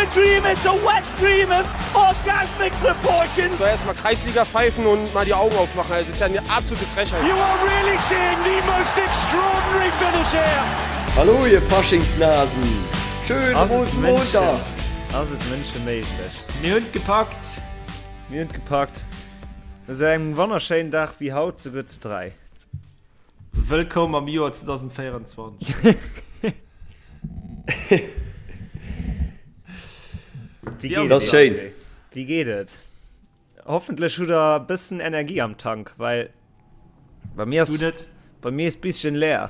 a dream, it's a wet dream of orgasmic proportions. Soll erst mal Kreisliga pfeifen und mal die Augen aufmachen, das ist ja eine absolute Frechheit. You are really seeing the most extraordinary finish here. Hallo ihr Faschingsnasen! Schönen Rosenmontag! Ass et Mënsche méiglech? Mir hunn et gepackt! Mir hunn et gepackt. No sou engem wonnerschéinen Dag wéi haut, souguer zu 3. Wëllkomm am Joer 2024. Wéi geet et? Schéin. Wéi geet et? Hoffentlech hutt der e bëssen Energie am Tank, well bei mir ass, bei mir ass bisschen leer.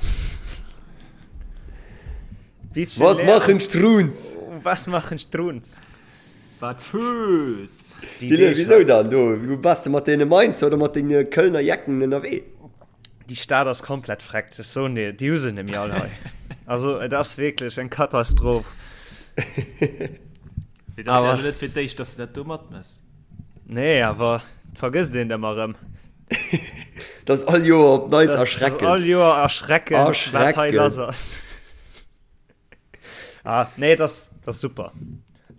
Bisschen Was leer. machen Strunz? Was machen Strunz? Wat Fööss! Dylan, wisou dann do? Bass de mat deene Mainzer oder mat denge Kölner Jecken ënnerwee? Déi Stad ass komplett freckt, ech soen dir, déi hu se nemmi all hei. Also et ass wierklech eng Katastroph. Mee dat ass ja net fir d'éischt, dass de dat do matmëss. Nee, awer et vergësst een et ëmmer erëm. Dat ass all Joer op Neits erschreckend. Dat ass all Joer erschreckend, wat hei lass ass. Ah, nee, dat ass, dat ass super.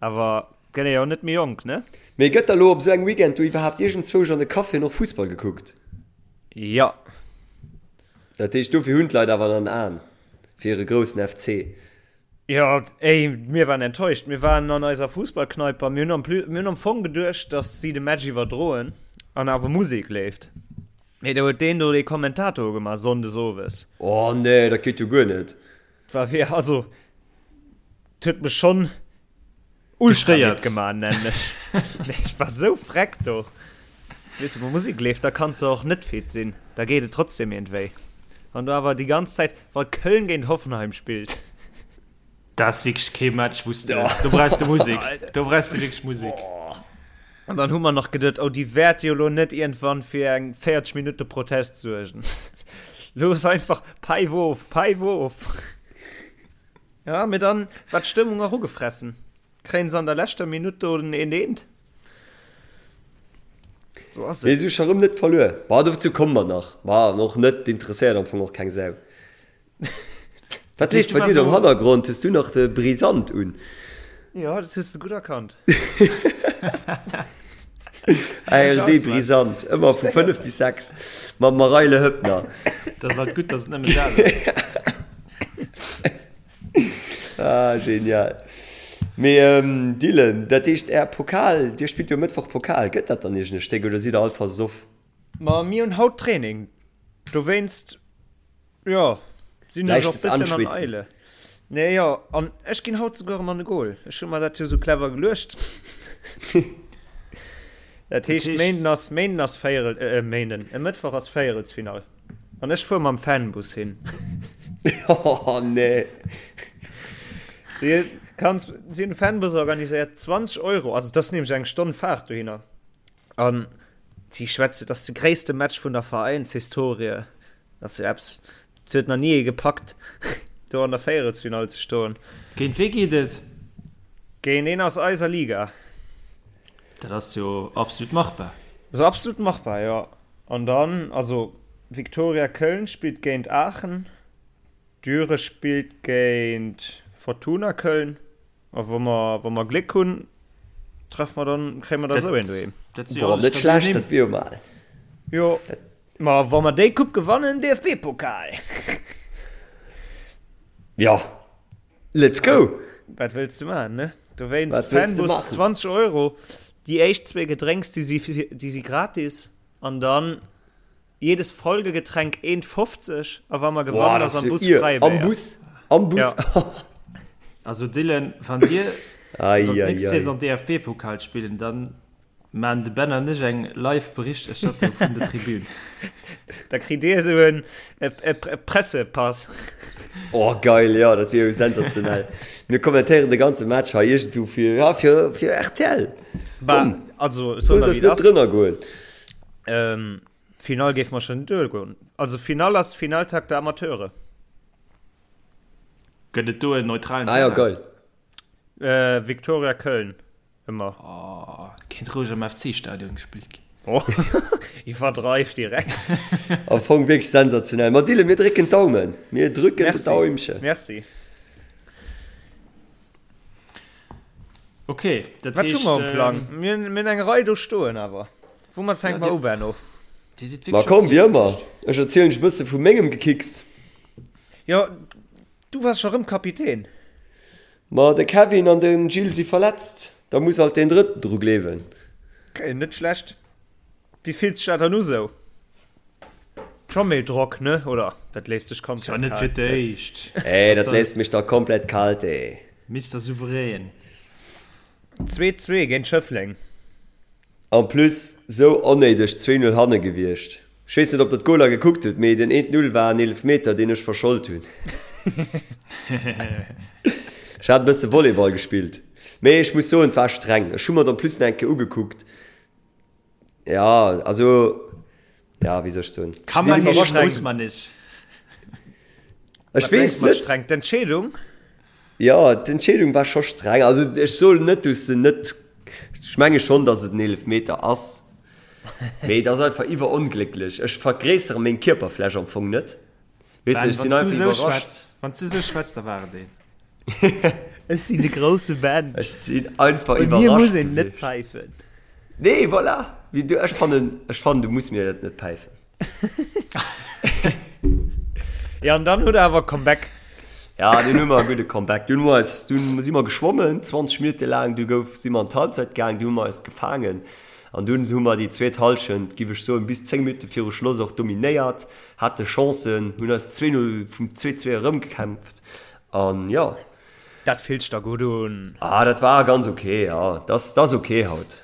Awer gëtt ee jo net méi jonk, ne? Mee gëtt da lo op esou engem Weekend do iwwerhaapt iergendzwousch an de Caféen och Fussball gekuckt? Jo. Dat heescht, dofir hunn d'Leit awer dann Aen fir hire groussen FC. Jo, ey, mir waren enttäuscht. Mir waren an eiser Fussballkneipe a mir hunn am plus, mir hunn am Fong geduecht, dass si de Match iwwerdroen an awer Musek leeft. Mee do huet deen do dee Kommentator ugemaach, sonndes owes. Oh nee, dat geet jo guer net. War wéi, also, 't huet mech schonn ultra midd gemaach, nennen ech. Nee, ech war sou freck do. Weess du, wou Musek leeft, da kanns de och net fit sinn, da geet et trotzdem iergendwéi. Wann du awer déi ganz Zäit, wa Köln géint Hoffenheim spillt. Dat ass wierklech kee Match, wou s de, do brauchs de Musek, do brauchs de wierklech Musek. An dann hu mer nach geduet, oh, déi wäerte jo lo net iergendwann fir eng 40 Minutte Protest suergen. Looss einfach, Päif of, päif of! Ja, mee dann war d'Stëmmung och ugefressen. Kréien se an der leschter Minutt do den eent eent. So ass et. Mee se hu scho rëm net verluer. Ma dozou komme mer nach. Ma an och net, interesséiert am Fong och keng Sau. Wat leeft bei dir do am Hannergrond? Hues du nach de Brisant un? Jo, dat hues de gutt erkannt. ARD Brisant, ëmmer vu 5 bis 6 mam Mareile Höppner. Dat ass alt gutt, dass et nëmmen dat ass. Ah, genial. Mee ähm, Dylan, dat heescht är Pokal, dir spillt jo Mëttwoch Pokal, gëtt dat dann iergend e Stéck oder sidd der all versoff? Ma mir hunn haut Training, dowéinst Jo, sinn ech och Leichtes bësschen an Anschwitzen. Eile. Nee, jo, an ech ginn haut souguer erëm an de Goal. Ech hu mer dat jo sou clever geluecht. Dat heescht, Méinden ass, Méinden ass Véierel, äh, Méinden, e Mëttwoch ass Véierelsfinall. An ech fuer mam Fanbus hin. Oh nee. Du kanns, si hunn e Fanbus organiséiert, 20 Euro, also dat ass nämlech eng Stonn Faart dohinner. An si schwätze, dat ass de gréisste Match vun der Veräinshistorie. Dat ass jo eppes, dat huet nach ni ee gepackt, do an der Véierelsfinall ze stoen. Géint wee geet et? Géint een aus eiser Liga. Dat ass jo absolut machbar. Ass absolut machbar, jo. An dann, also Viktoria Köln spillt géint Aachen, Düre spillt géint Fortuna Köln. A wa mer, wa mer Gléck hunn, treffe mer dann, kréie mer da sou een doheem. Dat si jo Boah, alles net stabil schlecht, Nimm. dat wier jo mal. Jo, ma wa mer déi Coupe gewannen, DFB-Pokal! Ja, let's go! Wat wëlls de maachen, ne? Dowéinst Wat wëlls de Fanbus maachen? 20 Euro, déi éischt zwee Gedrénks, déi si, déi si gratis, an dann Jedes Folgegetränk 1,50 a wa mer gewannen ass am Bus Fräibéier. Am Bus? Am Bus? Ja. Also Dylan, wann dir sollt nächst Saison DFB-Pokal spillen, dann maan de Ben an ech eng live Berichterstattung vun der Tribün. Da kritt dir esou en Pressepass. Oh geil, jo dat wier jo sensationell. Mir kommentéieren de ganze Match hei iergendwou fir, ja, fir, fir rtl. Komm, also ech soen looss der eis wéi et net ass. drënner goen. Finall géif mer schon duergoen. Also Finall ass Finaltag der Amateure. Gëtt et do en neutralen Ah ja, Terrain? geil. Äh, Viktoria Köln ëmmer. Oh, kéint roueg am FC-Stadion gespillt ginn. Oh, iwwerdreift direkt. Am Fong wierklech sensationell. Ma Dylan, mir drécken d'Daumen. Mir drücken Merci. d'Daumchen. Merci. Ok, dat Wat hu heescht, mer um Plang? Mir hunn mir hunn eng Rei do stoen awer. Woumat fänke Ja, mer dir, u, Benno? dir sidd Ma wierklech komm, aktiv wéi ëmmer, gewiescht. ech erzielen lech e bësse vu mengem Gekicks. Jo, du waars scho rëm Kapitän. Ma de Kevin an de Gilles si verletzt, da muss alt deen Drëtten dru gleewen. Ok, net schlecht. Wéi fillt sech dat dann u sou? Scho méi Drock, ne? Oder dat léisst dech Ass jo komplett net fir kal? d'éischt. Ey, Ass dat léisst mech da komplett kalt, ey. Mister Souverän. 2, 2 géint Schëffleng. En plus sou onnéideg 2, 0 hanne gewiescht. Ech weess net op der d'Goler gekuckt hutt, mee den 1, 0 war en Eelefmeter deen ech verschold hunn. Ech hat e bësse Volleyball gespillt, mee ech muss soen et war streng. Ech hu mer et en plus nach eng Kéier ugekuckt. Ja, also ja, wéi soll ech soen? Kann man nicht, muss man nicht. Ech weess net. Streng d'Entscheedung? Jo, d'Entscheedung war scho streng. Also ech soen net, dass se net, ech menge schonn, dass et en Eelefmeter ass, mee et ass einfach iwweronglécklech. Ech vergréissere meng Kierperfläch am Fong net. Weess de, ech sinn einfach iwwerrascht. Wann s du esou schwätz, da war et een. Ech sinn de grousse Ben. Ech sinn einfach Bei mir muss iwwerrascht een net gewiescht. päifen. Nee, voilà. Wéi du, ech fannen, ech fannen, du muss mir dat net päifen. Ja, an dann huet er awer Comeback. Ja, dunn hu mer e gudde Comeback. Dunn hu mer eis, dunn si mer geschwommen, 20 Minutte laang, du gouf, si mer an d'Halbzeit gaang, du hu mer eis gefaangen an dunn hu mer déi zweet Hallschent, giff ech soen, bis 10 Minutte viru Schloss och dominéiert, hate Chancen, hunn eis 2, 0 vum 2, 2 erëmgekämpft an jo. Dat fillt sech da gutt un. Ah, dat war ganz ok, jo. Dat ass ok haut.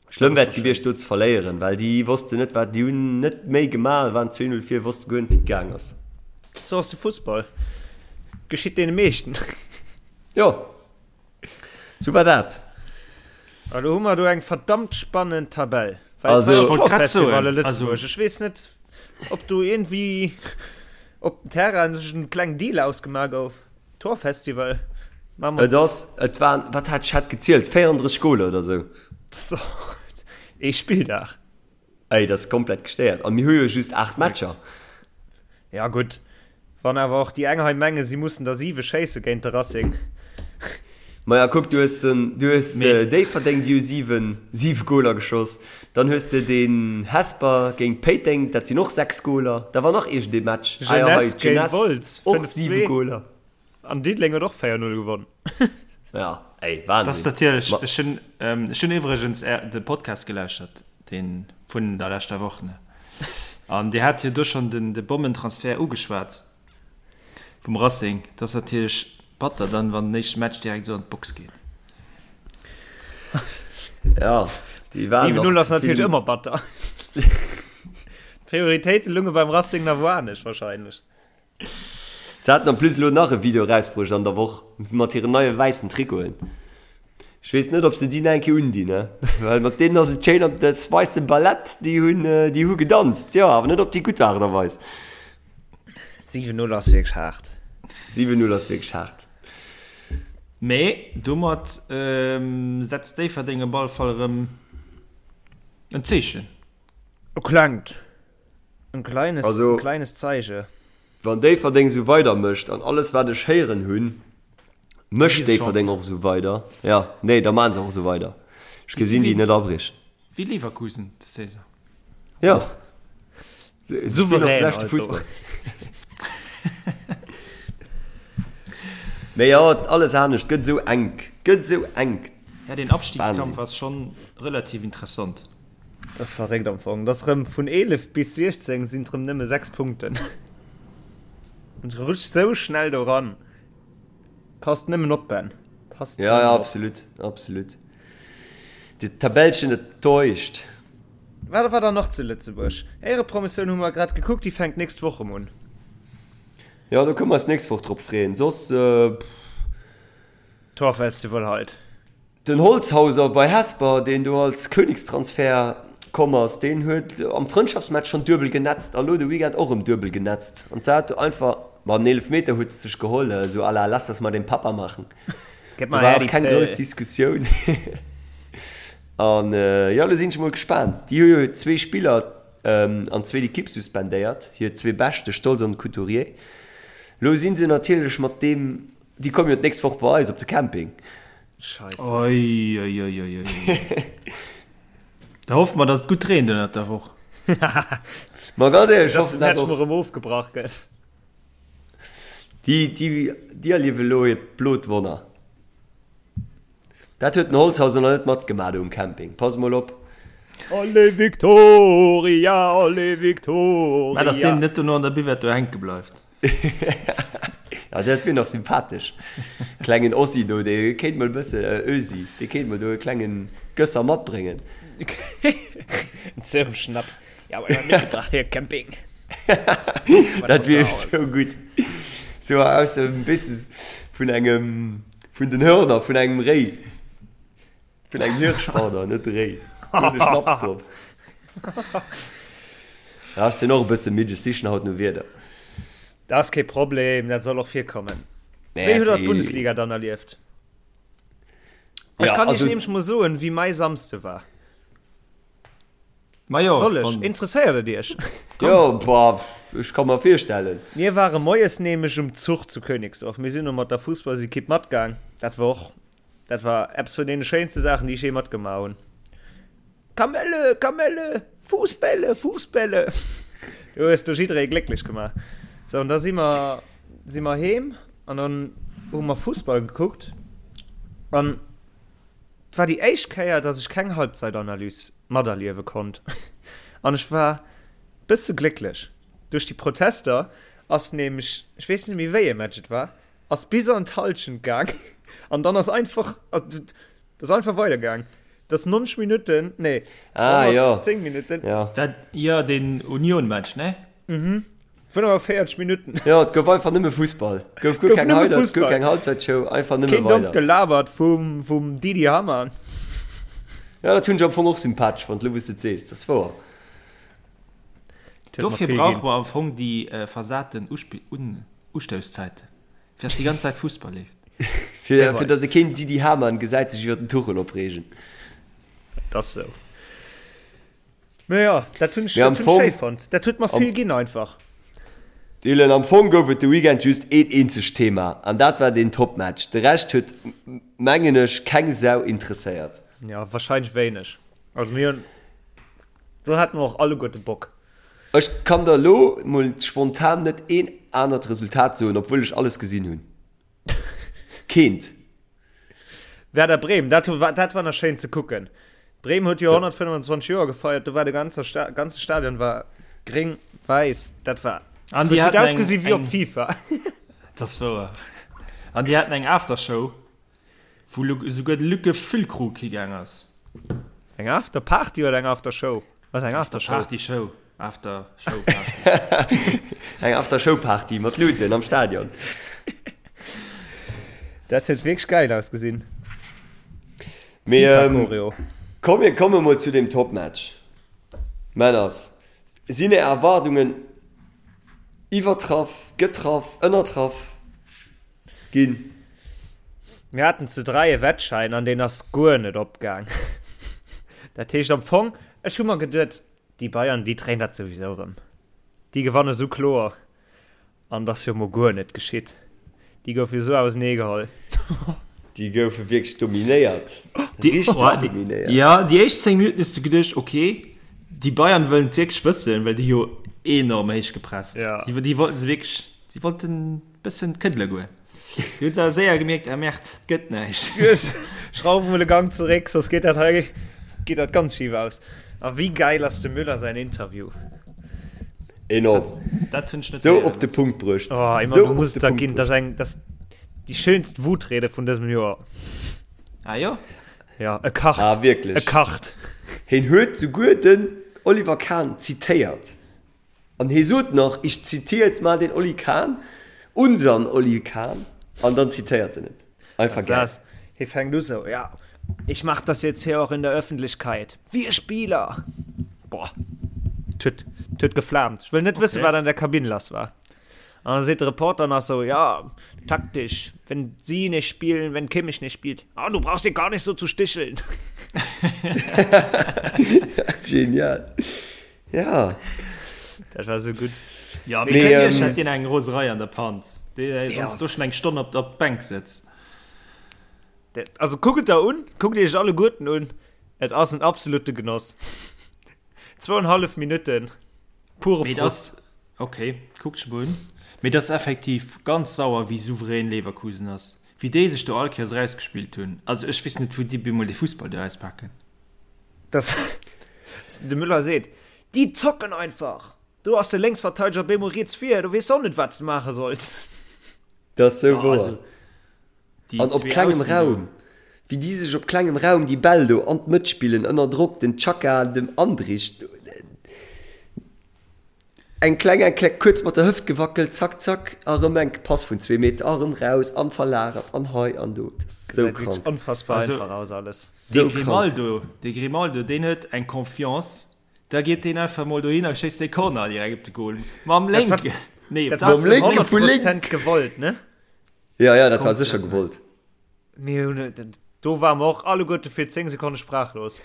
Schlëmm wär et gewiescht do ze verléieren, well déi wossten net wat, déi hunn net méi gemaach, waren 2, 0 vir, wosste guer net wéi et gaang ass. Sou ass de Fussball. Geschitt deene meeschten. Jo, sou war dat. A lo hu mer do eng verdammt spannend Tabell. Well Also, et war Ech wollt grad Torfestival a soen, also. Lëtzebuerg. Ech weess net, ob do iergendwéi op dem Terrain sech en klengen Deal ausgemaach gouf. Torfestival. Et ass, et waren, wat hat ech hat gezielt, 34 Goler oder sou. Ee Spilldag. Ey, dat ass komplett gestéiert. A mir hu jo just 8 Matcher. Ja gutt, wann awer och déi eng hei mengen, si mussen der 7 schéisse géint de Racing. Maja kuck, du hues den, du hues Déifferdeng, déi hu 7, 7 Goler geschoss. Dann hues de den Hesper géint Péiteng, dat sinn och 6 Goler. Da war nach iergendee Match, ah jo hei, Jeunesse géint d'Jeunesse, Wolz, och 7 5-2. Goler. An Diddeleng huet och 4-0 gewonn. Ja, ey, Dat ass Wahnsinn. natierlech, Ma ech hunn, ech hunn iwwregens är, de Podcast gelauschtert, dee vun der leschter Woch, ne? An Dir hat jo do schonn den, de Bommentransfert ugeschwat vum Racing. Dat ass natierlech batter dann, wann den éischte Match direkt esou an d'Box geet. Ja, déi waren 7-0 nach ass ze natierlech vill. ëmmer batter. D'Prioritéite lunge beim Racing nach wou anescht wahrscheinlech. Se haten en plus elo nach e Video erausbruecht an der Woch mat hiren neie wäissen Trikoten. Ech weess net ob se déi nach eng Kéier undinn, ne? Well mat deenen ass et schéin op das weisse Ballett, déi hunn déi hu gedanzt, jo, awer net op déi gutt Aart a Weis. 7-0 ass wierklech haart. 7-0 ass wierklech haart. Mee domat setzt Déifferdeng op alle Fall erëm en Zeechen. E klengt. En kleines, Also, en kleines Zeiche. Wann Déifferdeng esou weider mécht, an alles wat ech héieren hunn, mécht Gi se Déifferdeng Champion. och esou weider, jo, nee, da maachen se och esou weider. Ech Gi se gesinn déi wéi, net abriechen. wéi Leverkusen des Saison. Jo, se se spillen och de Souverän leschte also. Fussball. Mee jo, alles anescht gëtt esou enk, gëtt esou enk, Ja, deen dat ass Abstiegskampf Wahnsinn. ass schonn relativ interessant. Dat ass verréckt am Fong. Dat ass rëm vun 11 bis 16 sinn et rëm nëmme 6 Punkten. An et rutscht sou schnell do ran. Passt nëmmen op, Ben. Passt Ja, ja, nëmmen op. absolut, absolut. Déi Tabellchen, dat täuscht. Wat war dann nach zu Lëtzebuerg? Éierepromotioun hu mer grad gekuckt, déi fänkt nächst Woch erëm un. Jo, do kënne mer eis nächst Woch drop freeën. Soss, pff. Torfestival halt. Den Holzhauser bei Hesper, deen do als Königstransfer komm ass, deen huet am Frëndschaftsmatch schonn duebel genetzt a lo de Weekend och erëm duebel genetzt. An zwar huet einfach, ma den Eelefmeter huet e sech geholl, esou à la lass das mal den Papa machen. Gëtt Do mer war her och déi keng grouss Pëll. Diskussioun. An jo, lo sinn ech mol gespaant. Déi hu jo zwee Spiller an d'zweet Ekipp suspendéiert, hir zwee Bescht, de Stolz an de Couturier. Lo si se natierlech mat deem, déi komme jo d'nächst Woch bei eis op de Camping. Scheisse. Oi, oi, oi, oi, oi. Da hoffe mer, dass et gutt reent ënnert der Woch. Ma ganz éierlech, ech Dass de hoffen dat Match och. mol erëm ofgebrach gëtt. Déi, déi, déi erliewe elo hiert blot Wonner. Dat huet den Holzhauser nach net matgemaach do um Camping. Pass mol op. Allez Victoria, allez Victoria. Mä dass deen net dono an der Buvette do hänke bleift. Ja, dat wier nach sympathesch. Klengen Ossi do, dee kéint mol e bësse, Ösi, dee kéint mol do e klengen Gösser matbréngen. En Zirbenschnaps. Ja, aber mitgebracht hier Camping. Dat wier esou gutt. Sou aus dem, weess de, vun engem, vun den Hörner vun engem Réi. Vun engem Hirsch, pardon, net Réi. Do de Schnaps drop. Ja, ech sinn och e bësse midd, ech sichen haut no Wierder. Dat ass kee Problem, dat soll och virkommen. Nee, Wéi hutt der dat- d'Bundesliga dann erlieft? Ech Ja, kann iech also- nämlech mol soen, wéi mäi Samsde war. Ma jo, Soll ech? wann- Interesséiert et iech? Jo, bah, ech ka mer virstellen. Mir ware moies nämlech um Zuch zu Königsdorf. Mir sinn do mat der Fussballsekipp matgaang. Dat war och Dat war eppes vun deene schéinste Saachen, déi ech jee matgemaach hunn. Kamelle, Kamelle, Fuussbälle, Fuussbälle. Du hues do jidderee glécklech gemaach. Sou, an da si mer, si mer heem an dann hu mer Fussball gekuckt. An et war déi éischt Kéier, dass ech keng Halbzeitanalyse materliewe konnt. An ech war bësse glécklech. Duerch déi Protester ass nämlech, ech weess net méi wéi ee Match et war, Ass bis an d'Halschent gaang an dann ass einfach ass einfach weider gaang. Dat ass 90 Minutten, nee, ah, 110 Minutten. Ja. Dat, jo, deen Union-Match, ne? Mhm. 45 Minutten. Jo, et gouf einfach nëmme Fussball. Gouf guer keng Highlights, guer keng Halbzeitshow, einfach nëmme weider. Keen dommt weider. Gelabert vum, vum Didi Hamann. Ja, dat hunn ech am Fong och sympathesch fonnt, elo wou s de et sees. Dat ass wouer. Dofir brauche mer am Fong déi versaten Ustousszäiten, fir dass déi ganz Zäit Fussball leeft. Fir fir dass e keen Didi Hamann gesäit sech iwwer den Tuchel opreegen. Dat ass esou. Mä jo, dat hunn ech Mee am dat hunn ech Fong schéi fonnt. Dat huet mer am vill ginn einfach. Dylan, am Fong gouf et de Weekend just een eenzegt Thema an dat war deen Topmatch. De Rescht huet, mengen ech, keng Sau interesséiert. Jo, wahrscheinlech wéineg. Also mir hunn, do hate mer och alleguerte Bock. Ech kann der elo mol spontan net een anert Resultat soen, obwuel ech alles gesinn hunn. Keent. Werder Bremen, dat war, dat war nach schéin ze kucken. Bremen huet jo 125 Joer gefeiert, do war de ganze, Sta ganze Stadion war gréng, wäiss, dat war An déi huet haten eng, ausgesi wéi op eng, FIFA. dat ass wouer. An déi haten eng Aftershow, wou esouguer de Luc Füllkrug higaang ass. Eng After Party oder eng After Show? Was eng After Show? Party Show, After Show Party. Eng After Show Party mat Luuten am Stadion. Dat huet wierklech geil ausgesinn. Mee FIFA ähm, Choreo. komm mir komme mol zu dem Topmatch. Männers, sinn är Erwaardungen iwwertraff, getraff, ënnertraff ginn? Mir haten zu 3 e Wettschäin an deen ass guer net opgaang. Dat heescht am Fong, ech hu mer geduet, déi Bayern, déi dréien dat souwisou erëm. Déi gewanne sou kloer. An et ass jo mol guer net geschitt. Déi goufe jo sou auseneegeholl. Déi goufe wierklech dominéiert. Richteg dominéiert. Jo, déi éischt 10 Minutten hues de geduecht, ok, déi Bayern wëllen et wierklech wëssen, well déi jo enorm héich gepresst. Déi wollten se wierklech, déi wollten Bëssen këddele goen. Déi hunn se awer séier gemierkt, ah Merde, et gëtt näischt. Schrauf emol e Gang zeréck, soss geet dat hei geet dat ganz schif aus. A wéi gäil ass dem Müller säin Interview? Enorm. Dat hunn ech net Sou héieren. op de Punkt bruecht. Oh, Emma, Sou du op muss de et der Punkt ginn. Dat ass bruecht. eng, dat ass déi schéinst Wutrede vun dësem Joer. Ah jo? Ja, e kacht. Ah, wierklech. E kacht. Hien huet souguer den Oliver Kahn zitéiert. An hie sot nach, ich zitiere jetzt mal den Oli Kahn, unseren Oli Kahn, an dann zitéiert en en. Einfach geil. Hie fänkt u sou, ja, ich mach das jetzt hier auch in der Öffentlichkeit, wir Spieler! Boah, 't huet, 't huet geflaamt. Ech wëll net wëssen, wat an der Kabinn lass war. An da seet de Reporter nach sou, ja, taktisch, wenn sie nicht spielen, wenn Kimmich nicht spielt, ah, du brauchst dich gar nicht so zu sticheln. Genial. Ja. Dat war sou gutt. Ja, mee Mee, natierlech ähm, hätt deen eng Roserei an der Panz, dee Ja. sonst do schon eng Stonn op op d'Bänk sëtzt. Also kuckt et der un, kuckt iech alleguerten un, et ass en absolute Genoss. Zwouenhallef Minutten pure Mee Frust. das, okay, kuckt ech mol un. Mee das effektiv ganz sauer wéi souverän Leverkusen ass. Wéi déi sech do all Kéiers erausgespillt hunn. Also ech weess net wou déi bemol dee Fussball do auspaken. Das, de Müller seet, déi zocken einfach! Do ass de Lénksverteideger bemol riets vir, do weess de och net wat s de maache solls. Dat ass sou Ja, wouer. also déi An op zwee klengem Aussen do. Raum, wéi déi sech op klengem Raum déi Bäll do an d'Mëtt spillen, ënner Drock, den Xhaka dem Andrich eng kleng, eng kleng, kuerz mat der Hëft gewackelt, zack, zack, a rëm eng Pass vun zwee Meter, a rëm raus an verlagert an hei an do. Dat ass sou Gesäit wierklech krank. onfassbar Also einfach aus alles. dee Sou krank. Grimaldo, dee Grimaldo, deen huet eng Confiance, da geet deen einfach mol dohin a schéisst dee Corner direkt op de Goal. Mam Dat war, lénken, nee, op dat war Mam zu lénke 100 vu lénk. Prozent gewollt, ne? Ja, ja, dat war sécher Komplett. gewollt. Mir hunn, do ware mer och alleguerte fir 10 Sekonne sprachlos.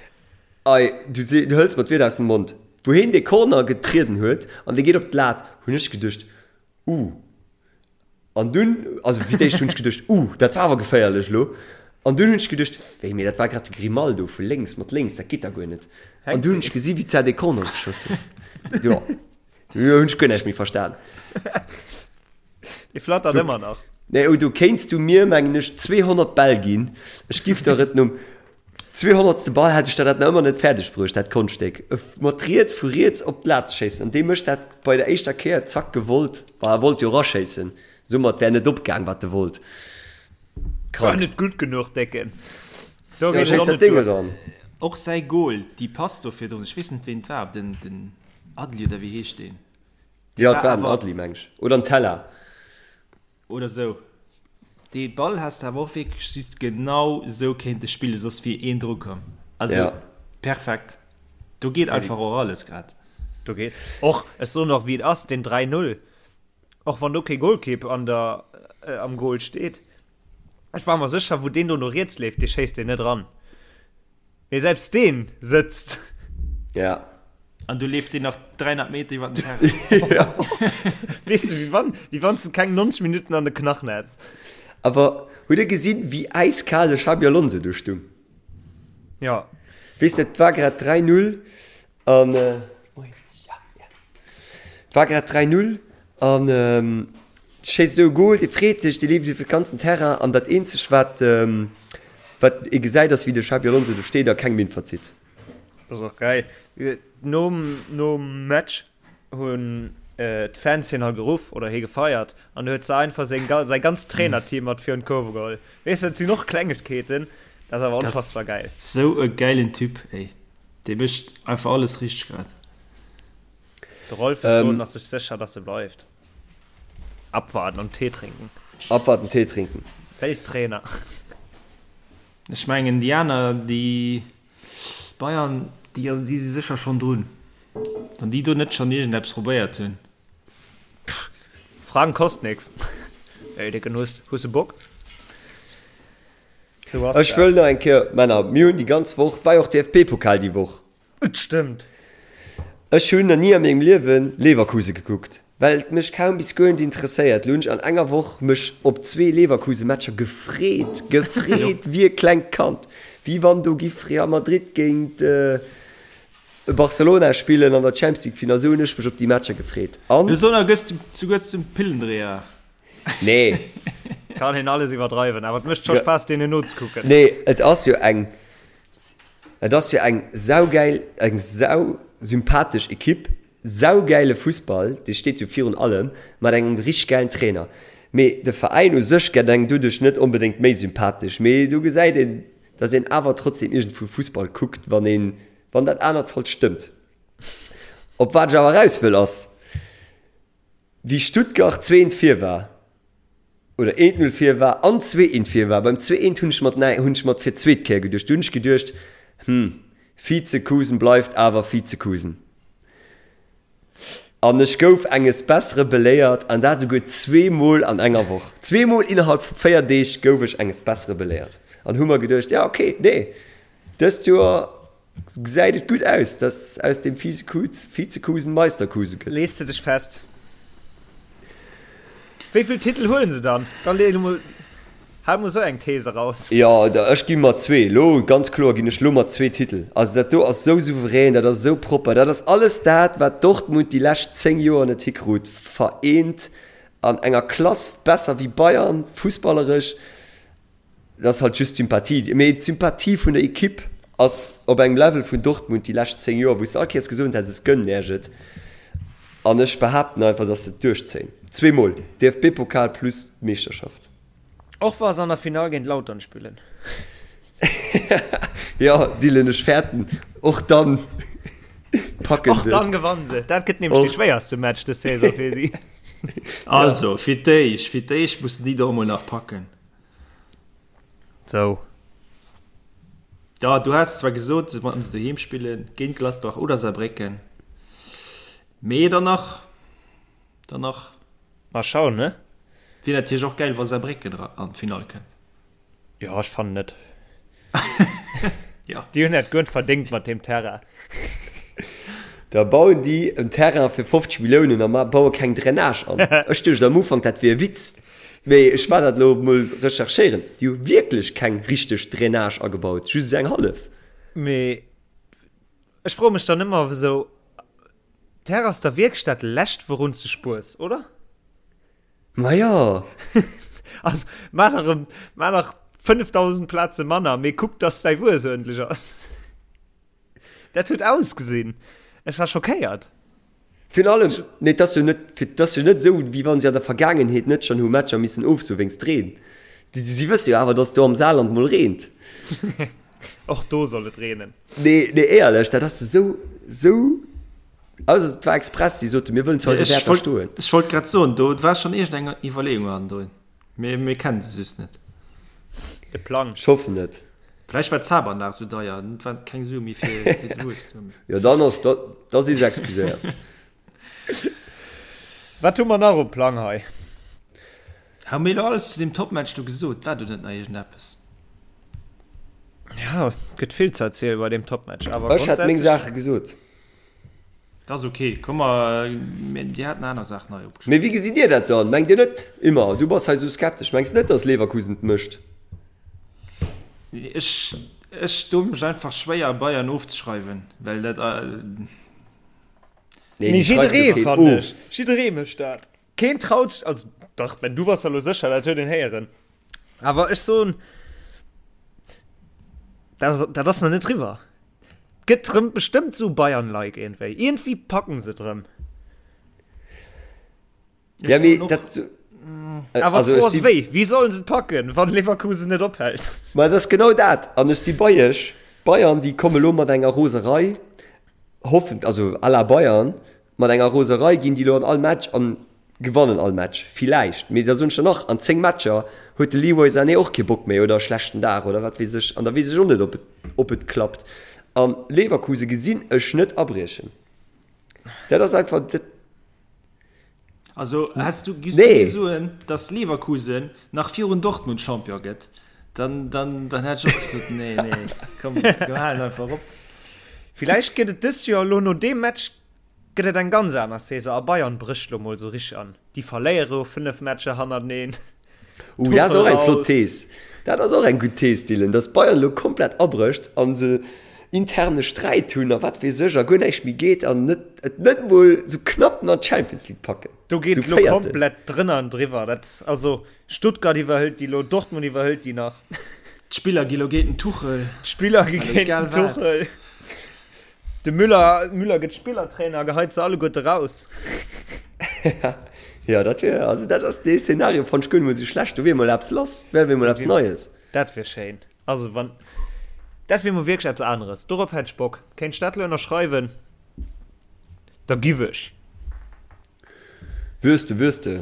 Ei, du se, du hëls mer d'Wierder aus dem Mond. Wou heen dee Corner getrieden huet an dee geet op d'Lat, hunn ech geduecht, Uh. An dunn, also fir d'éischt hunn ech geduecht, Uh, dat war awer geféierlech elo. An dunn hunn ech geduecht, Wéi, mee dat war grad de Grimaldo vu lénks, mat lénks, dat geet da guer net. An dunn hunn ech gesi wéi d'Zar dee Corner geschoss huet. Jo, do hunn ech guer näischt méi verstan. Dee flattert ëmmer nach. Nee, oh, do kéints du mir, mengen ech, 200 Bäll ginn. Ech giff der et nom 200. Ball hätt ech der dat nach ëmmer net fäerdeg bruecht, dat Konschtstéck. Mat riets, vu riets op d'Lat ze schéissen. An dee mécht dat bei der éischter Kéier, zack, gewollt. Bah, e wollt jo eraschéissen, soumat wär net opgaang, wat e wollt. War net gutt genuch, Décken. Do Ja, geet et schéiss och dat net Ding duer. eran. Och säi Goal, déi Pass do virdrun, ech weess net ween et war, den, den Adli oder wéi heescht deen? Jo, et war den awer- Adli, meng ech. Oder den Tella. Oder sou. Dee Ball häss de awer och wierklech just genau sou kéinte spillen, soss wier een dru komm. Also Ja. perfekt. Do geet einfach och alles grad. Do geet och, ech soen och wéi et ass, den 3-0, och wann do kee Golkipp an der, äh, am Goal steet, ech war mer sécher, wou deen do no riets leeft, dee schéisst deen net ran. Mee selbst deen sëtzt. Ja. An du leeft deen nach 300 Meter iwwer den Terrain. Ja. Weess du, wéi wann, wéi wann s de keng 90 Minutten an de Knachen hätt. Awer hutt dir gesinn, wéi äiskal de Xabi Alonso do stung? Ja. Weess de, et war grad 3, 0 an. Et war grad 3, 0 an schéisst esou e Goal, dee freet sech, dee leeft iwwer de ganzen Terrain an dat eenzegt wat wat ee gesäit ass wéi de Xabi Alonso do steet a keng Minn verzitt. Dat ass och geil. Nom nom Match hunn d'Fans hien halt geruff oder hie gefeiert an du huet se einfach seng säi ganzt Trainerteam mat virun d'Kurve geholl. Weess dat sinn och Klengegkeeten, dat ass awer onfassbar geil. Sou e gäilen Typ ey, dee mécht einfach alles richteg grad. De Rolf ass soen ass sech sécher dass e bleift. Abwarten und Tee trinken. Abwarten, Tee trinken. Welttrainer. Ech mengen déi aner, déi Bayern, déi déi si sécher schonn drun. Wann déi do net schonn iergendeppes probéiert hunn. Fragen kost nix. Ey Dicken, hues hues de Bock? Sou ass Ech dat. wëll nach eng Kéier, Männer, mir hunn déi ganz Woch, et war jo och DFB-Pokal déi Woch. Et stëmmt. Ech hunn na ni a mengem Liewen Leverkusen gekuckt, well et mech kaum bis guer net interesséiert. Lo hunn ech an enger Woch mech op zwee Leverkusen Matcher gefreet, gefreet wéi e klengt Kand, wéi wann do giff Real Madrid géint Barcelona spillen an der Champions League Final. Esou hunn ech mech op déi Matcher gefreet an. Lo soen gëss de souguer zum Pillendreher. Nee. Kann een alles iwwerdreiwen, awer et mécht scho Spaass deenen nozekucken. Nee, et ass jo eng. Et ass jo eng saugäil, eng sausympathesch Ekipp, saugäile Fussball, dee steet jo virun allem, mat engem richteg gäilen Trainer. Mee de Veräin u sech gett engem doduerch net onbedéngt méi sympathesch. Mee do gesäit een, dass een awer trotzdem iergendwou Fussball kuckt, wann een, wann dat anert halt stëmmt. Op wat ech awer eraus wëll ass, Wéi Stuttgart zweent vir war, oder eent Null vir war an zweeent vir war, beim zweeent hunn ech mat näi hunn ech mat fir d'zweet Kéier geduecht, du hunn ech geduecht, hm, Vizekusen bleift awer Vizekusen. An ech gouf enges Bessere beléiert, an dat esouguer zweemol an enger Woch. Zweemol innerhalb vu 4 Deeg gouf ech enges Bessere beléiert an hu mer geduecht, ja okay, nee, dëst Joer Gesäit et gutt aus, dass aus dem Vizekusen Meisterkusen gëtt. Lees de dech fest? Wéi vill Titel huelen se dann? Dann lee emol. Hau mol sou eng These eraus. Jo, ech gi mat zwee. Lo, ganz kloer ginn ech lo mat zwee Titel. Also dat do ass sou souverän, dat ass sou propper, dat ass alles dat, wat Dortmund déi lescht 10 Joer net hikrut, vereent an enger Klass, besser wéi Bayern, fussballeresch. Dat ass halt just d'Sympathie. Mee d'Sympathie vun der Ekipp ass op engem Level vun Dortmund déi lescht 10 Joer, wou s de all Kéiers gesot häss, ech gënnen Iech et. An ech behaapten einfach, dass se et duerchzéien. Zweemol DFB-Pokal plus d'Meeschterschaft. Och wa se an der Finall géint Lautern spillen. Jo, Dylan, ech fäerten, och dann packen se et. Och dann gewannen se. Dat gëtt nämlech dee schwéierste Match dës Saison fir si. Also, fir d'éischt, fir d'éischt mussen déi do emol nach packen. Sou. Ja, du has zwar gesot, wann se doheem spillen, géint Gladbach oder Saarbrécken, mee dann nach, dann nach. Mal schauen, ne? Wier natierlech och gäil, wa Saarbrécken an d'Finall kënnt. Jo, ech fannen net. Ja. Déi hunn dat guer net verdéngt mat deem Terrain. Da bauen déi en Terrain fir 50 Milliounen a baue keng Drainage an. Ech duecht am Ufank, dat wier e Witz. Mee ech war dat elo mol recherchéieren, déi hu wierklech keng richteg Drainage agebaut, just esou eng hallef. Mee ech froe mech dann ëmmer esou, Terre ass da wierklech dat lescht wourun s de spuers, oder? Ma jo! Also maach nach erëm, maach nach 5.000 Plaze manner, mee kuck dass däi Wues uerdentlech ass. Dat huet ausgesinn, ech war schockéiert. Virun allem, nee, et ass jo net, et ass jo net esou, wéi wa si an der Vergaangenheet net schonn hu Matcher missen ofsoe wéinst Reen. Si wësse jo awer, datt do am Saarland mol reent. Och do soll et reenen. Nee, nee, éierlech, dat ass esou, esou, ausser et war express, si soten, mir wëllen zu eise Wäerter stoen. Ech wollt grad soen, do war schonn iergendeng Iwwerleeung hannendrun, mee mir kennen se just net. De Plang. Ech hoffen et. Vläicht war d'Zabanlag sou deier, et war keng Sue méi fir de Bus. Jo, dann ass, da, da si se excuséiert. Wat hu mer nach um Plang hei? Hu mir elo alles zu deem Topmatch do gesot? War do net nach iergendeppes? Ja, et gëtt vill ze erzielen bei deem Topmatch, awer Ech hätt meng grundsätzlech. Saache gesot. Dat ass ok. Komm mer, dir hat nach aner Saachen hei opgeschriwwen. Mee wéi gesitt Dir dat dann? Mengt Dir net, Immer, du bass hei sou skeptesch, mengs net, dass Leverkusen et mécht? Ech, ech doe mech einfach schwéier Bayern ofzeschreiwen, well dat. Nee, Mee déi schreift jo jidderee, keen fannen of. ech. Jidderee mécht dat. Keen traut sech, also dach, Ben, du bass der elo sécher, dat huet een héieren. Awer ech soen, dat, dat ass nach net riwwer. Gëtt rëm bestëmmt sou Bayern-like iergendwéi. Iergendwéi packen se et rëm. Ja, mee dat. Awer Also, d'Fro ech ass si. wéi? Wéi sollen se et packen, wann Leverkusen net ophält? Ma et ass genau dat. An ech si bei iech. Bayern, déi komme lo mat enger Roserei, hoffen, also à la Bayern, mat enger Roserei ginn déi lo an all Match an gewannen all Match. Villäicht. Mee da soen ech der nach, an 10 Matcher huet de Leroy Sané och kee Bock méi oder e schlechten Dag oder wat weess ech. An da weess ech och net, ob et, ob et klappt. An Leverkusen gesinn ech net abriechen. Dat ass einfach, dat. Also häss du, giss du Nee. mir soen, dass Leverkusen nach virun Dortmund Champion gëtt, dann, dann, dann hätt ech och gesot, nee, nee, komm, mir halen einfach op. Villäicht gëtt et dëst Joer elo no deem Match gëtt et eng ganz aner Saison a Bayern brécht lo mol sou richteg an. Déi verléiere jo 5 Matcher hannerteneen. Uh, dat ass och eng flott Thees. Dat ass och eng gutt Thees, Dylan, dass Bayern elo komplett abrécht a se interne Sträit hunn a wat weess ech a guer näischt méi geet an net, et net mol sou knapp nach d'Champions League packen. Do geet Sou et elo Véierten. komplett drënner an driwwer. Dat, also Stuttgart iwwerhëlt déi elo, Dortmund iwwerhëlt déi nach. D'Spiller gi lo géint den Tuchel. D'Spiller gi Also géint egal den wat. Tuchel. De Müller, Müller gëtt Spillertrainer a geheit se alleguerte raus. Ja, dat wier, also dat ass dee Szenario fannt ech guer net mol sou schlecht. Do wier mol eppes lass, dat wär mol eppes Neies. Dat wier schéin. Also wann, dat wier mol wierklech eppes aneres. Dorop hätt ech Bock. Kéint ech dat elo ënnerschreiwen, da giff ech. Wiers de, wiers de.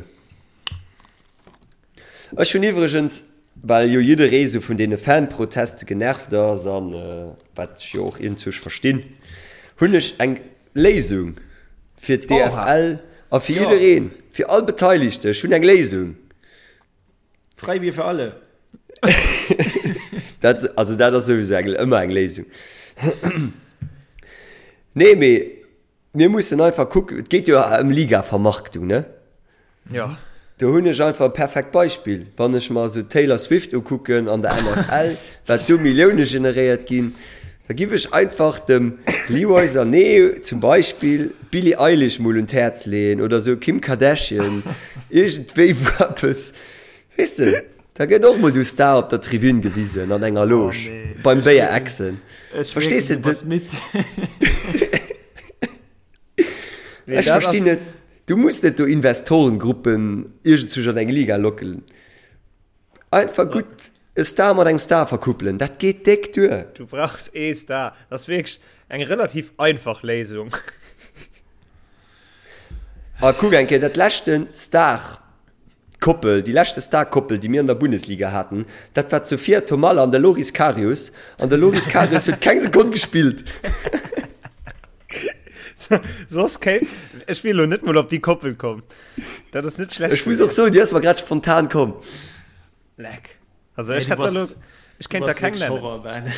Ech hunn iwwregens, well jo jidderee sou vun deene Fanproteste genervt ass, an wat ech jo och iergendzuerch verstinn, hunn ech eng Léisung fir d'DFL a fir jiddereen, fir all Beteiligte. Ech hunn eng Léisung. Freibier für alle. Dat, also dat ass souwisou eng, ëmmer eng Léisung. Nee, mee Mir mussen einfach kucken, et geet jo ëm Ligavermarktung, ne? Jo. Do hunn ech einfach e perfekt Beispill, wann ech mer esou d'Taylor Swift ukucken an der NFL, wat do Millioune generéiert ginn, da giff ech einfach dem Leroy Sané zum Beispill d'Billie Eilish mol un d'Häerz leeën oder esou Kim Kardashian, iergendwéi wou eppes, weess de, da gëtt och mol du Star op der Tribün gewisen an enger Loge beim Béier exen, verstees de? Ech verstinn net. Du muss net do Investorengruppen iergendzwousch an eng Liga locken. Einfach gutt e Star mat engem Star verkuppelen, dat geet déck duer. Du brauchs ee Star. Dat ass wierklech eng relativ einfach Léisung. A kuck eng Kéier, dat leschte Star-Koppel, déi leschte Star-Koppel, déi mir an der Bundesliga haten, dat war d'Sofia Thomalla an de Loris Karius. An de Loris Karius huet keng Sekonn gespillt. Soss kéint ech wier lo net mol op déi Koppel komm. Dat ass net schlecht. Ech muss och soen, déi ass mer grad spontan komm. Leck. Also ech hätt da lo, ech kéint der keng nennen.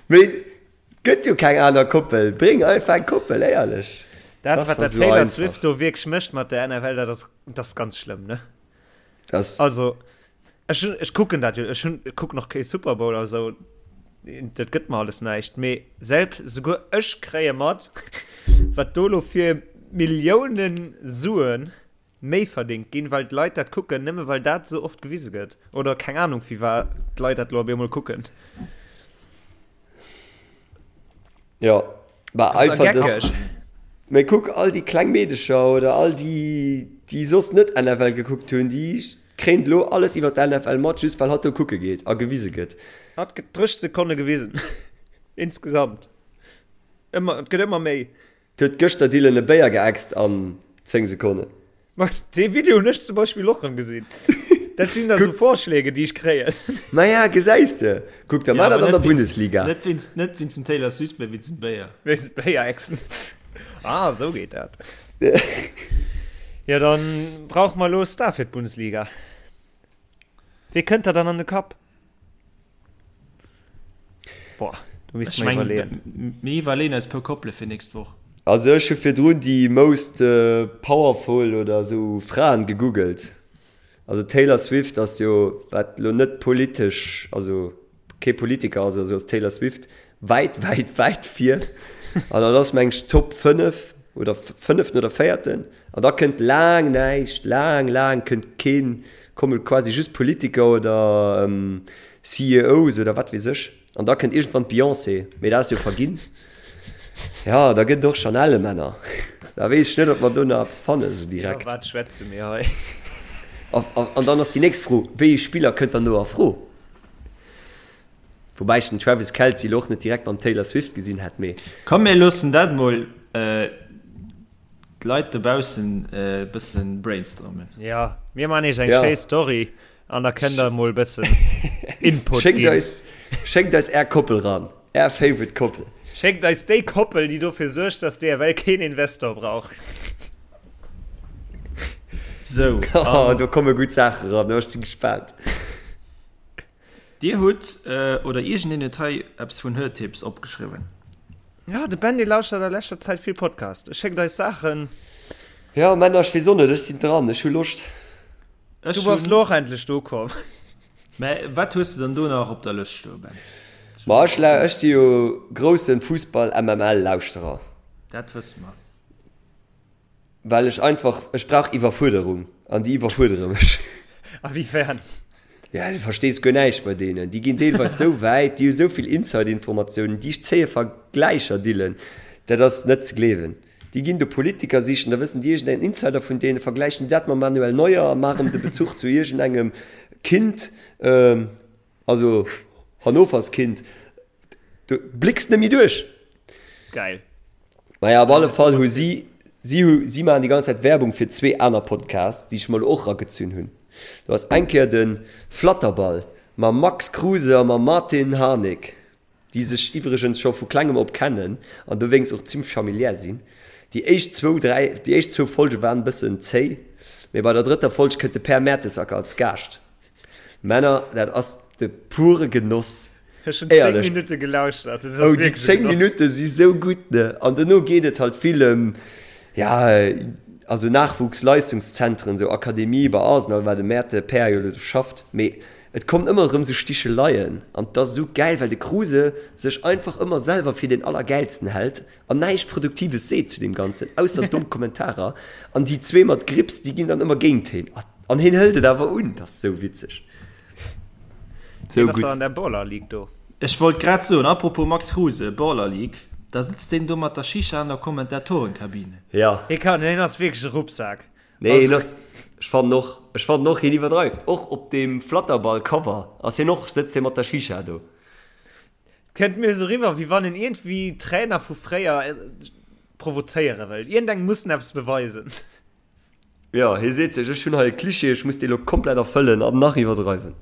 Mee et gëtt jo keng aner Koppel. Bréng einfach eng Koppel, éierlech. Dat wat dat Taylor Swift do wierklech mécht mat der NFL, dat ass, dat ass ganz schlëmm, ne? Das Also ech hunn, ech kucken dat jo, ech hunn, ech kucken och kee Super Bowl a sou, dat gëtt mer alles näischt, mee selbst, souguer ech kréie mat, wat do elo fir Milliounen Sue méi verdéngt ginn, well d'Leit dat kucken, nëmme well dat esou oft gewise gëtt oder keng Anung firwat d'Leit dat elo op eemol kucken. Jo, bah Das ass einfach das. geckeg. Mee kuck, all déi kleng Meedecher oder all déi, déi soss net NFL gekuckt hunn, déi kréien elo alles iwwer d'NFL mat, just well hatt do kucke geet a gewise gëtt. Hatt gëtt 30 Sekonne gewisen. Insgesamt. Ëmmer, et gëtt ëmmer méi. Huet gëschter Dylan e Béier geäxt an 10 Sekonnen. Ma dee Video hunn ech zum Beispill och rëm gesinn. Dat sinn da sou Vorschläge, déi ech kréien. Maja, gesäis de. Kuck, da mar dat an der Bundesliga. Net wéinst, net wéinst dem Taylor Swift, mä wéinst dem Béier. Wéinst Béier-Ächzen. Ah, sou geet dat. Jo, dann brauche mer elo e Star fir d'Bundesliga. Wee kënnt der dann an de Kapp? Boah, do misst Ech mer mengen, iwwerleeën. mir iwwerleeën eis puer Koppele fir nächst Woch. Also ech hu virdrun déi most powerful oder esou Fraen gegoogelt. Also Taylor Swift ass jo, wat lo net politesch, also kee Politiker ass oder sou, ass Taylor Swift wäit, wäit, wäit vir. An dat ass meng ech Top 5 oder fënneften oder véierten. An da kënnt laang näischt, laang, laang kënnt keen, komme quasi just Politiker oder CEOs oder wat weess ech. An da kënnt iergendwann d'Beyoncé, mee dat ass jo verginn. Ja, da gëtt et och Chanel-Männer. Da weess ech net, ob mer do nach eppes fannen esou direkt. Iwwer wat schwätze mir hei? An dann ass déi nächst Fro, Wéi ee Spiller kënnt dann do a Fro? Woubäi ech den Travis Kelce elo och net direkt mam Taylor Swift gesinn hätt, mee. Komm mir loossen dat mol d'Leit dobaussen e bëssen brainstormen. Jo, mir man iech eng Ja. schéi Story an da kënnt der mol bëssen Input Schéckt ginn. eis, schéckt eis är Koppel ran, är favorite Koppel. Schéckt eis déi Koppel, déi dofir suergt, dass d'EFL keen Investor brauch. Sou, Oh, an do komme gutt Saache ran, ech si gespaant. Dir hutt, oder iergendeen huet hei eppes vun Hörtipps opgeschriwwen. Jo, de Benny lauschtert a leschter Zäit vill Podcast. E schéckt eis Saachen. Jo, Männer, ech weess och net, ech sinn dran, ech hu Loscht. Ech Du bass hunn. lo och endlech do komm. Mä wat hues de dann do nach op der Lëscht stoen, Ben? Ma ech, ech si jo groussen Fussball-MML-Lauschterer. Dat wësse mer. Well ech einfach, ech brauch Iwwerfuerderung an déi iwwerfuerdere mech. A wéi fern? Ja, du verstees guer näischt bei deenen. Déi ginn deelweis sou wäit, déi hu sou vill Inside-Informatiounen, déi zéie Vergläicher, Dylan, dat ass net ze gleewen. Déi ginn do Politiker sichen, da wëssen déi iergendeng Insider vun deenen, vergläichen déi dat mam Manuel Neuer a maachen de Bezuch zu iergendengem Kind, also Hannovers Kind. Du blécks net méi duerch. Geil. Naja, op alle Fall hu si, si hu, si maachen déi ganz Zäit Werbung fir zwee aner Podcasts, déi ech mer elo och eragezunn hunn. Do ass eng Kéier de Flatterball mam Max Kruse a mam Martin Harnik, déi sech iwwregens scho vu klengem op kennen an dowéinst och zimmlech familiär sinn. Déi éischt zwou, dräi, déi éischt zwou Folge waren e bëssen zéi, mee bei der drëtter Folg kënnt de Per Mertesacker als Gaascht. Männer, dat ass de pure Genoss. Ech hunn 10 Minutte gelauschtert. Dat ass Oh, déi wierklech e 10 Genoss. Minutte si sou gutt, ne? An dono geet et halt vill ëm, ja, Also Nachwuchsleistungszentren, sou Akademie bei Arsenal, war de Mäerte Pär jo elo do schafft, mee et kommen ëmmer erëm sou Sticheleien an et ass esou gäil, well de Kruse sech einfach ëmmer selwer fir deen Allergäilsten hält an näischt Produktives seet zu deem Ganzen, ausser domm Kommentarer an déi zwee mat Grips, déi ginn dann ëmmer géint heen an heen hëlt et awer un, dat ass sou witzeg. Sou gutt. An der Baller League do. Ech wollt grad soen, apropos Max Kruse, Baller League, da sëtzt deen do mat der Shisha an der Kommentatorenkabine. Ja. Hie kann, hien ass wierklech e Ruppsak. Nee, hien ass, ech fannen och, ech fannen och, hien iwwerdreift. Och op deem Flatterball-Cover ass hien och, sëtzt hie mat der Shisha do. Kënnt mir esou riwwer, wéi wann en iergendwéi Trainer vu fréier provozéiere wëll. Iergendengem muss en eppes beweisen. Jo, hie seet sech, ech hunn hei e Klischee, ech muss dee lo komplett erfëllen an nach iwwerdreiwen.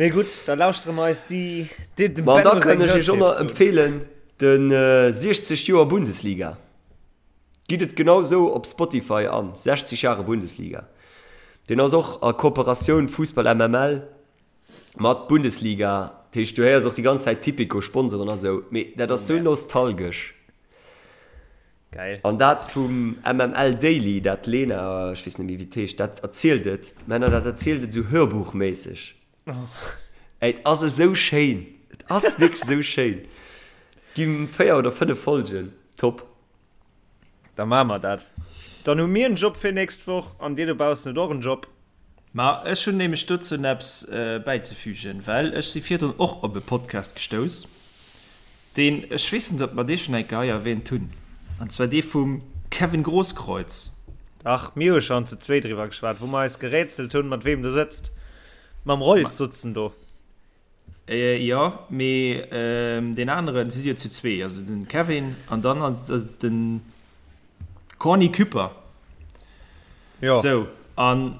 Mee gutt, da lauschtere mer eis déi, déi, dem Ma da Benno seng kann ech iech och nach Hörtipps un. empfeelen, de 60 Joer Bundesliga. Gitt et genau sou op Spotify an, 60 Jahre Bundesliga. Deen ass och a Kooperatioun Fussball MML mat Bundesliga. Dat heescht, du héiers och déi ganz Zäit Tipico, Sponsoren a sou. Mee dat ass sou nostalgesch. Geil. An dat vum MML Daily, dat Lena, ech weess net méi wéi et heescht, dat erzielt et, Männer, dat erzielt et esou hörbuchméisseg. Ey, et ass esou schéin, et ass wierklech esou schéin. Gi 4 oder 5 Folgen, top. Da maache mer dat. Dann hu mir en Job fir nächst Woch an dir dobaussen hutt och en Job. Ma ech hunn nämlech dozou eppes bäizefügen, well ech si virdrun och op e Podcast gestouss, deen, ech weess net, ob mer dee schonn eng Kéier hei erwähnt hunn, an zwar dee vum Kevin Grosskreutz. Dach, mir hu schonn zu zwee driwwer geschwat, wou mer eis gerätselt hunn, mat weem du sëtzt. Mam Reus sutz en do. Jo, mee deen aneren, si si jo zu zwee, also den Kevin an dann den Corny Küpper. Jo. Sou, an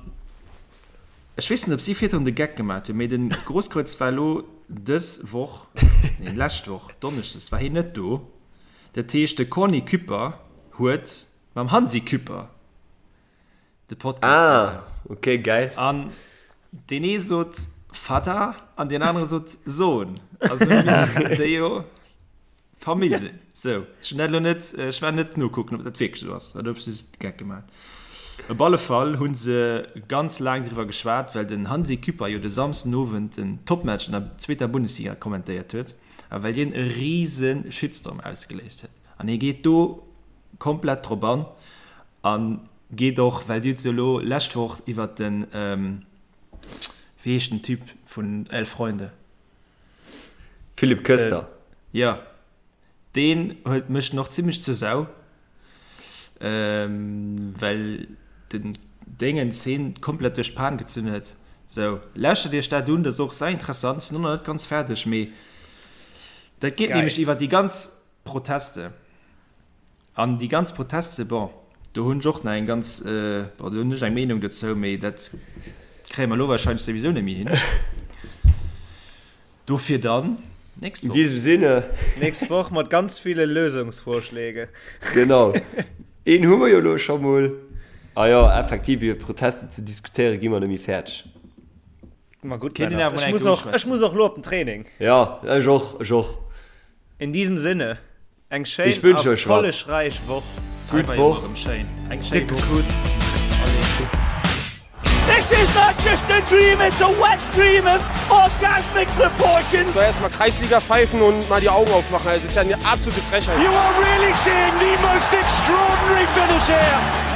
ech weess net, ob si virdrun de Geck gemaat hunn, mee den Grosskreutz war elo dës Woch, nee lescht Woch Donneschdes war hien net do. Dat heescht, de Corny Küpper huet mam Hansi Küpper de Podcast Ah, gemaach. okay, geil. An deen ee sot Vater an deen anere sot Sohn. Also missten déi jo Famill sinn. Sou, ech hunn dat elo net, ech war net nokucken, ob dat wierklech esou ass oder ob se just de Geck gemaach hunn. Op alle Fall hu se ganz laang driwwer geschwat, well den Hansi Küpper jo de Samsdenowend den Topmatch an der zweeter Bundesliga kommentéiert huet a well deen e rise Shitstorm ausgeléist huet. An hie geet do komplett drop an a geet och, well Dir hutt se elo lescht Woch iwwert den, wéi heescht den Typ vun Elf Freunde? Philipp Köster. Jo, deen huet mécht en och zimlech zur Sau, well den Déngens heen komplett duerch d'Pan gezunn huet. Sou, lauschtert iech dat un, dat ass och sau interessant. Ech sinn och nach net ganz fäerdeg, mee dat geet nämlech iwwer déi ganz Proteste. An déi ganz Proteste, bon, do hunn ech och nach eng ganz, bon, do hunn ech eng Meenung dozou, mee dat kréie mer elo wahrscheinlech souwisou net méi hin. Dofir dann nächst Woch. In diesem Sinne. Nächst Woch mat ganz ville Lösungsvorschläge. Genau. Een hu mer jo elo scho mol. A jo, effektiv, iwwer Proteste ze diskutéiere gi mer net méi fäerdeg. Ma gutt, Männer, ech muss och, ech muss och elo op den Training. Jo, ech och, ech och. In diesem Sinne. Eng schéin erfollegräich Woch. Gutt Woch. Eng décke Kuss. This is not just a dream, it's a wet dream of orgasmic proportions. So erstmal Kreisliga pfeifen und mal die Augen aufmachen. Das ist ja eine absolute Frechheit. You are really seeing the most extraordinary finish here.